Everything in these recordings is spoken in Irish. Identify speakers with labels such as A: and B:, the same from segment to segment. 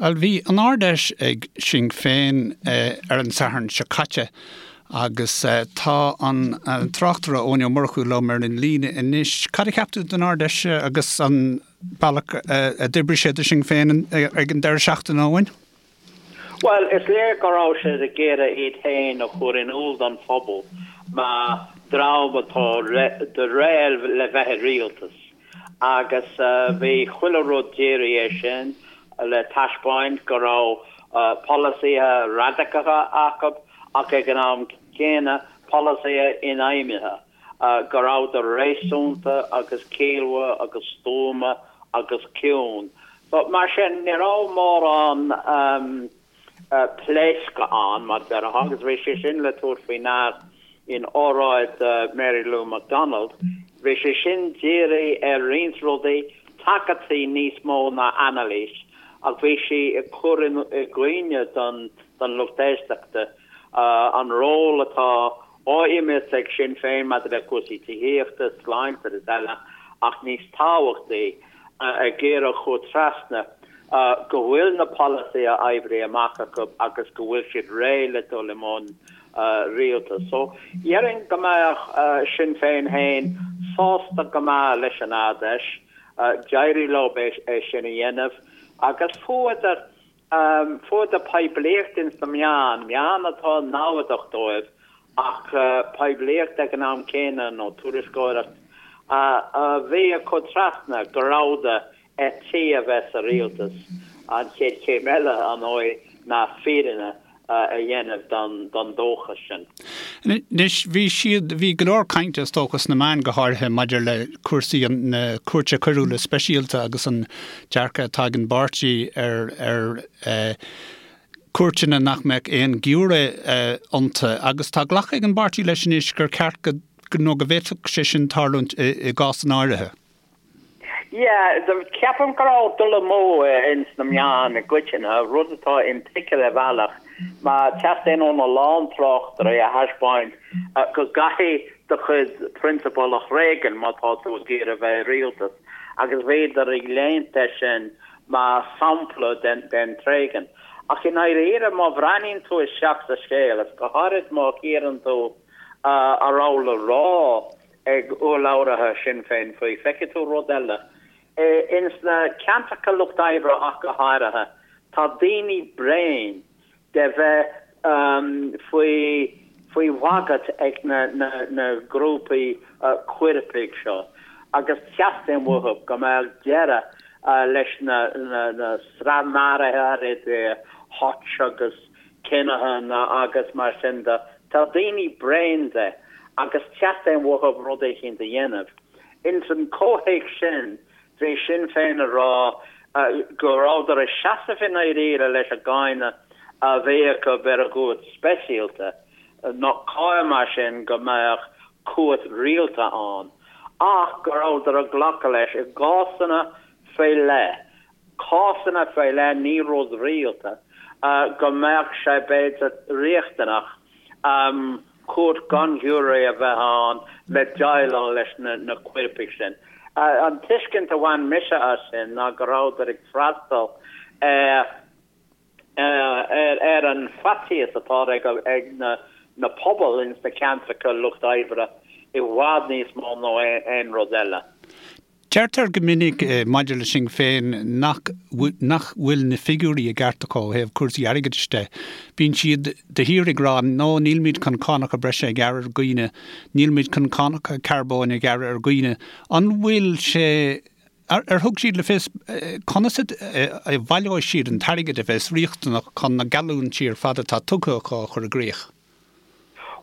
A: Bhuel, bhí an Ard-Fheis ag Sinn Féin ar an Satharn seo caite agus tá an tráchtaire Eoin Ó Murchú liom ar an líne anois. Cad a cheap tú den Ard-Fheis agus an bealach a d'oibrigh sé do Sinn Féin ag an deireadh seachtaine, Eoin?
B: Bhuel, is léir go raibh siad ag iarraidh iad féin a chur in iúl don phobal mar dream atá réidh le bheith i rialtas agus bhí chuile rud dírithe air sin le taispeáint go raibh polasaithe radacacha acu ach ag an am céanna polasaithe infheidhmithe. go rabhadar réasúnta agus ciallmhar agus stuama agus ciúin. So, mar sin, ní raibh mórán pléascadh ann, mar déarfá, agus bhí sé sin le tabhairt faoi ndear in óráid Mary Lou McDonald. Bhí sé sin dírithe ar roinnt rudaí, tagairtí níos mó ná anailís, ach bhí sí ag cur i gcuimhne don lucht éisteachta an ról atá á imirt ag Sinn Féin maidir le cúrsaí tithíochta, sláinte agus eile, ach níos tábhachtaí, ag iarraidh a chur trasna go bhfuil na polasaithe oibrithe amach acu agus go bhfuil siad réidh le dul i mbun rialtais. So, dhéarfainn go mbeadh Sinn Féin féin sásta go maith leis an Ard-Fheis, d'éirigh leo é sin a dhéanamh agus fuaireadar Fuaireadar poiblíocht ins na meáin, meáin atá namhadach dóibh ach poiblíocht ag an am céanna nó tuairisceoireacht a bhí ag cur trasna go rabhadar ar tí a bheith sa rialtas. An chéad chéim eile, ar ndóigh, ná fírinne a dhéanamh don dóchas
A: sin. Anois, bhí siad, bhí go leor cainte, is dócha, sna meáin go háirithe maidir le cúrsaí na Cúirte Coiriúla Speisialta agus an dearcadh atá ag an bpáirtí ar ar chúirteanna nach mbeadh aon ghiúiré iontu. Agus tá glactha ag an bpáirtí leis anois gur ceart go, nó go bhféadfadh sé sin tarlúint i gcásanna áirithe.
B: Yeah, ceapaim go raibh dul amú ins na meáin i gcoitinne, rud atá intuigthe ar bhealach, mar teastaíonn óna lán tráchtairí a thaispeáint go gcaithfidh do chuid prionsabal a thréigean má tá tú ag iarraidh bheith i rialtas, agus bhíodar ag léimt air sin mar sampla den tréigean. Ach i ndáiríre, má bhreathnaíonn tú isteach sa scéal, is go háirid má chíorann tú a raibh le rá ag urlabhraithe Shinn Féin faoi. Feicfidh tú rud eile. Ins na ceantracha lucht oibre ach go háirithe, tá daoine bréan de bheith faoi faoi bhagairt ag na na grúpaí coirpigh seo agus teastaíonn uathu go mbeadh deireadh leis na na sraith maruithe idir Hutch agus Kinahan agus mar sin de. Tá daoine bréan de agus teastaíonn uathu rud éicint a dhéanamh. Ins an comhthéacs sin, bhí Sinn Féin ag rá go rabhadar ag seasamh i ndáiríre leis an gcáineadh a bhí acu ar an gcúirt speisialta, nach cóir mar sin go mbeadh cúirt rialta ann, ach go rabhadar ag glacadh leis i gcásanna faoi leith cásanna faoi leith, ní rud rialta, go mbeadh sé b'fhéidir riachtanach cúirt gan ghiúiré a bheith ann le déileáil leis na coirpigh sin. An tuiscint a bhain mise as sin ná go rabhadar ag freastal ar ar an faitíos atá ag na pobail ins na ceantracha lucht oibre i bhfad níos mó ná aon rud eile.
A: Deirtear go minic maidir le Sinn Féin nach nach bhfuil na figiúirí i gceart acu ó thaobh cúrsaí airgeadais de. Bíonn siad de shíor ag rá no nílmid chun cánacha breise a ghearradh ar dhaoine, nílmid chun cánacha carbóin a ghearradh ar dhaoine. An bhfuil sé, ar thug siad le fios conas a bhaileoidh siad an t-airgead a bheas riachtanach chun na geallúintí ar fad atá tugtha acu a chur i gcrích?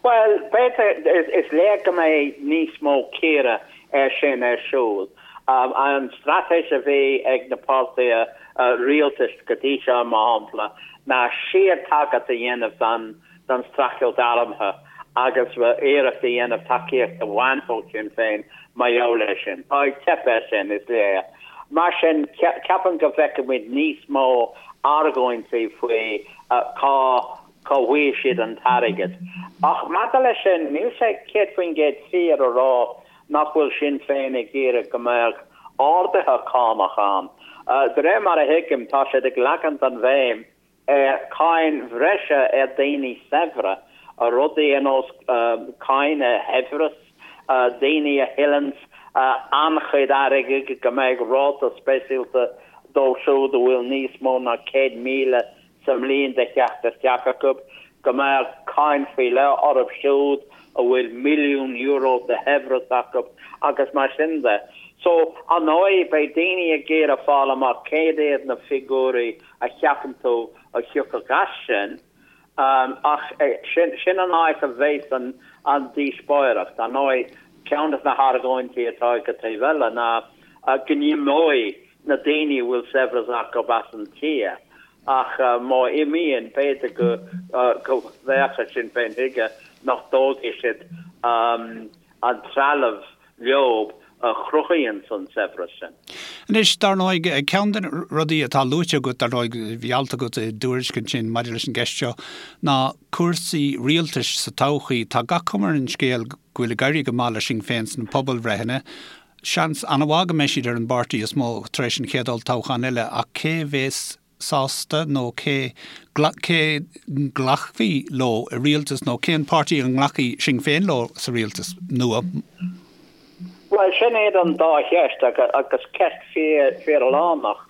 B: Bhuel, b'fhéidir, is léir go mbeidh níos mó cíoradh air sin ar siúl. An straitéis a bhí ag na páirtithe rialtais go dtí seo, mar shampla, ná síor-tagairt a dhéanamh don streachailt armtha agus iarracht a dhéanamh tacaíocht a bhaint ó Shinn Féin mar gheall air sin. Tá ag teip air sin, is léir. Mar sin, ceapaim go bhfeicfimid níos mó argóintí faoi cá cá bhfaighidh siad an t-airgead. Ach maidir leis sin, níl sé 100% fíor a rá nach bhfuil Sinn Féin ag iarraidh go mbeadh arduithe cánach ann. De réir mar a thuigim, tá siad ag leagaint an bhéim ar cáin bhreise ar daoine saibhre, rudaí ar nós cáin ar shaibhreas, daoine a thuilleanns an-chuid airgid, go mbeidh ráta speisialta dóibh siúd a bhfuil níos mó ná 100,000 sa mbliain de theacht isteach acu, go mbeadh cáin faoi leith orthu siúd a bhfuil €1,000,000 de shaibhreas acu agus mar sin de. So, ar ndóigh, beidh daoine ag iarraidh fáil amach céard iad na figiúirí a cheapann tú a thiocfadh as sin, ach sin an áit a bheas an díospóireacht. Ar ndóigh, ceann de na hargóintí atá ag an taobh eile ná go n-imeoidh na daoine a bhfuil saibhreas acu as an tír, ach má imíonn, b'fhéidir go bhféachfaidh Sinn Féin chuige nach dtógfaidh siad an trealamh leo a chruthaíonn an saibhreas sin.
A: Anois, dar ndóigh, ceann de na rudaí atá luaite agat, dar ndóigh, bhí alt agat i dTuairisc ansin maidir leis an gceist seo, ná cúrsaí rialtais sa todhchaí. Tá gach cuma ar an scéal go bhfuil ag éirí go maith le Sinn Féin sna pobalbhreitheanna. Seans an-mhaith go mbeidh siad ar an bpáirtí is mó tar éis an chéad olltoghchán eile ach cé bhéas sásta nó cé cé nglacfaí leo i rialtas nó cén páirtí a nglacfaidh Sinn Féin leo sa rialtas nua?
B: Bhuel, sin iad an dá cheist agus ceist fíor-lárnach.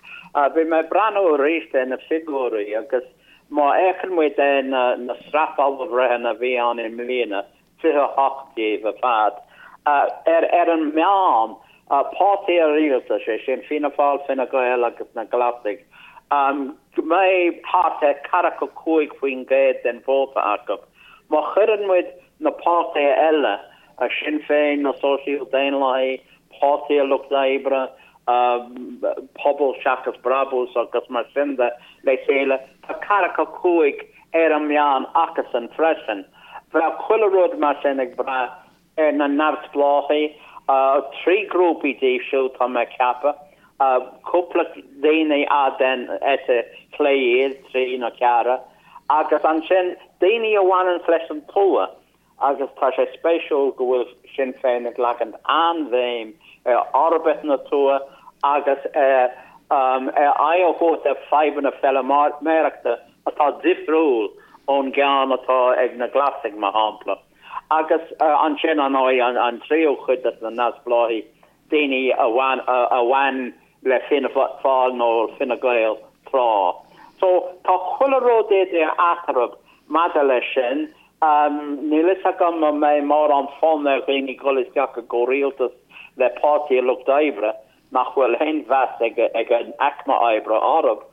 B: Bhí mé ag breathnú arís ar na figiúirí agus má fhéachann muid ar na sraith pobalbhreitheanna a bhí ann i mbliana, 28 díobh ar fad. Ar an meán, páirtí an rialtais, sé sin Fianna Fáil, Fine Gael agus na Glasaigh, go mbeidh thart ar 45% den vóta acu. Má chuireann muid na páirtithe eile, Sinn Féin, na Sóisial Daonlathaigh, Páirtí an Lucht Oibre, Pobal Seachas Brabús agus mar sin de le chéile, tá 45 ar an meán acusan freisin. Bheadh chuile rud mar sin ag brath ar na neamhspleáchaigh, 3 grúpaí díobh siúd tá mé ag ceapadh, cúpla daoine ar den eite chlé iad, 3 nó 4, agus ansin daoine a bhaineanns leis an tuath. Agus tá sé spéisiúil go bhfuil Sinn Féin ag leagaint an-bhéim ar fhorbairt na tuaithe agus ar aghaidh a thabhairt ar fadhbanna feilméarachta atá difriúil ón gceann atá ag na Glasaigh, mar shampla. Agus ansin, ar ndóigh, an tríú cuid de na neamhspleáchaigh, daoine a bhain le Fianna Fáil nó Fine Gael tráth. So, tá chuile rud idir eatarthu maidir leis sin. Níl fhios agam an mbeidh mórán fonn ar dhaoine dul isteach i gcomhrialtas le Páirtí an Lucht Oibre, nach bhfuil aon mheas ag an aicme oibre orthu,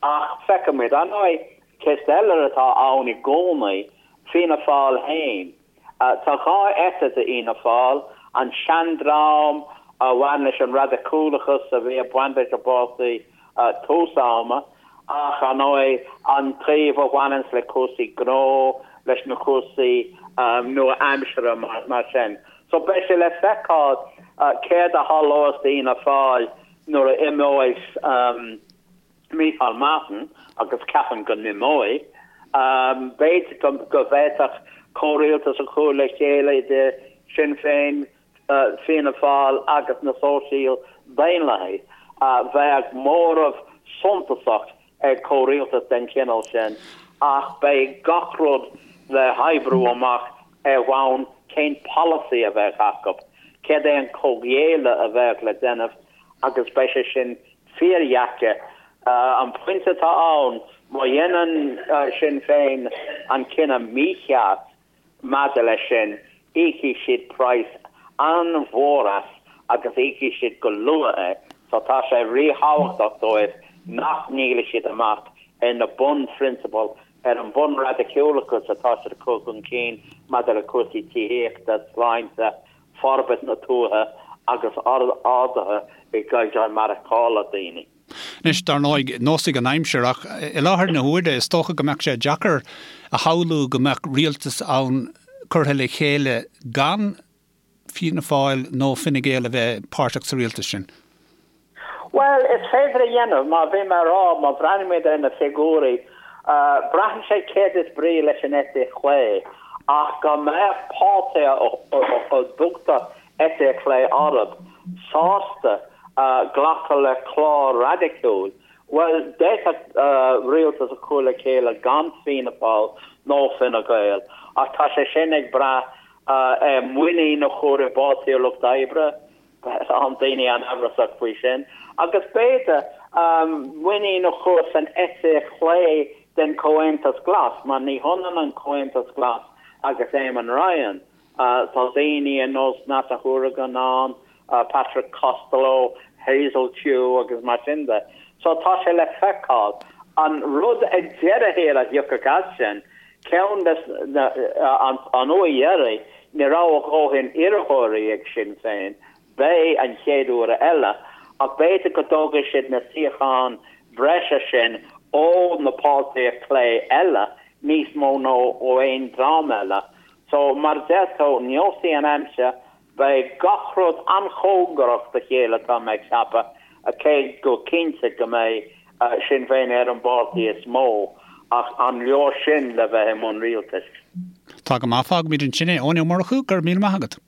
B: ach feicfimid. Ar ndóigh, ceist eile atá ann i gcónaí, Fianna Fáil féin. Tá 2 eite d'Fhianna Fáil, an seandream a bhain leis an raidiciúlachas a bhí ag baint leis an bpáirtí tús ama, ach ar ndóigh an taobh a bhaineanns le cúrsaí gnó, leis na cúrsaí nua-aimseartha mar sin. So beidh sé le feiceáil céard a tharlós d'Fhianna Fáil nuair a imeoidh Micheál Martin, agus ceapaim go n-imeoidh. B'fhéidir go bhféadfadh comhrialtas a chur le chéile idir Sinn Féin, Fianna Fáil agus na Sóisial Daonlathaigh. Bheadh móramh suntasach ag comhrialtas den chineál sin ach beidh gach rud le hoibriú amach ar bhonn cén polasaí a bheadh acu, céard é an comhghéilleadh a bheadh le déanamh agus beidh sé sin fíordheacair. An pointe atá ann, má dhéanann Sinn Féin an cinneadh mícheart maidir leis sin, íocfaidh siad praghas an-mhór as agus íocfaidh siad go luath é. So tá sé ríthábhachtach dóibh nach ndíolfaidh siad amach ar na bunphrionsabail, ar an bhunraidiciúlachas atá siad ag cur chun cinn maidir le cúrsaí tithíochta, sláinte, forbairt na tuaithe agus arduithe i gcaighdeán maireachtála daoine.
A: Anois, dar ndóigh, neosfaidh an aimsir, ach i láthair na huaire, is dócha go mbeadh sé deacair a shamhlú go mbeadh rialtas ann curtha le chéile gan Fianna Fáil nó Fine Gael a bheith páirteach sa rialtas sin.
B: Bhuel, is féidir a dhéanamh, mar bhí mé a rá, má bhreathnaímid ar na figiúirí, braitheann sé céard is brí leis an eite chlé, ach go mbeadh páirtithe a dtugtar eite chlé orthu sásta. Glacadh le clár raidiciúil? Bhuel, d'fhéadfadh rialtas a chur le chéile gan Fianna Fáil nó Fine Gael, ach tá sé sin ag brath ar muinín a chur i bPáirtí an Lucht Oibre, tá daoine an-amhrasach faoi sin, agus b'fhéidir muinín a chur san eite chlé den Chomhaontas Glas, mar ní hionann an Comhaontas Glas agus Eamon Ryan. Tá daoine ar nós Neasa Hourigan ann, Patrick Costello, Hazel Chu agus mar sin de. So tá sé le feiceáil. An rud ag deireadh thiar a thiocfadh as sin, ceann des na, an uair dheiridh, ní raibh a dhóthain iarrthóirí ag Sinn Féin, beidh an chéad uair eile, ach b'fhéidir go dtógfaidh siad na suíocháin bhreise sin ó na páirtithe clé eile níos mó ná ó aon dream eile. So, mar a deir tú, neosfaidh an aimsir, beidh gach rud an-chóngarach do chéile tá mé ag ceapadh, cé go cinnte go mbeidh Sinn Féin ar an bpáirtí is mó, ach an leor sin le bheith i mbun rialtais?
A: Tá go maith, fágfaimid ansin é. Eoin Ó Murchú, go raibh míle maith agat.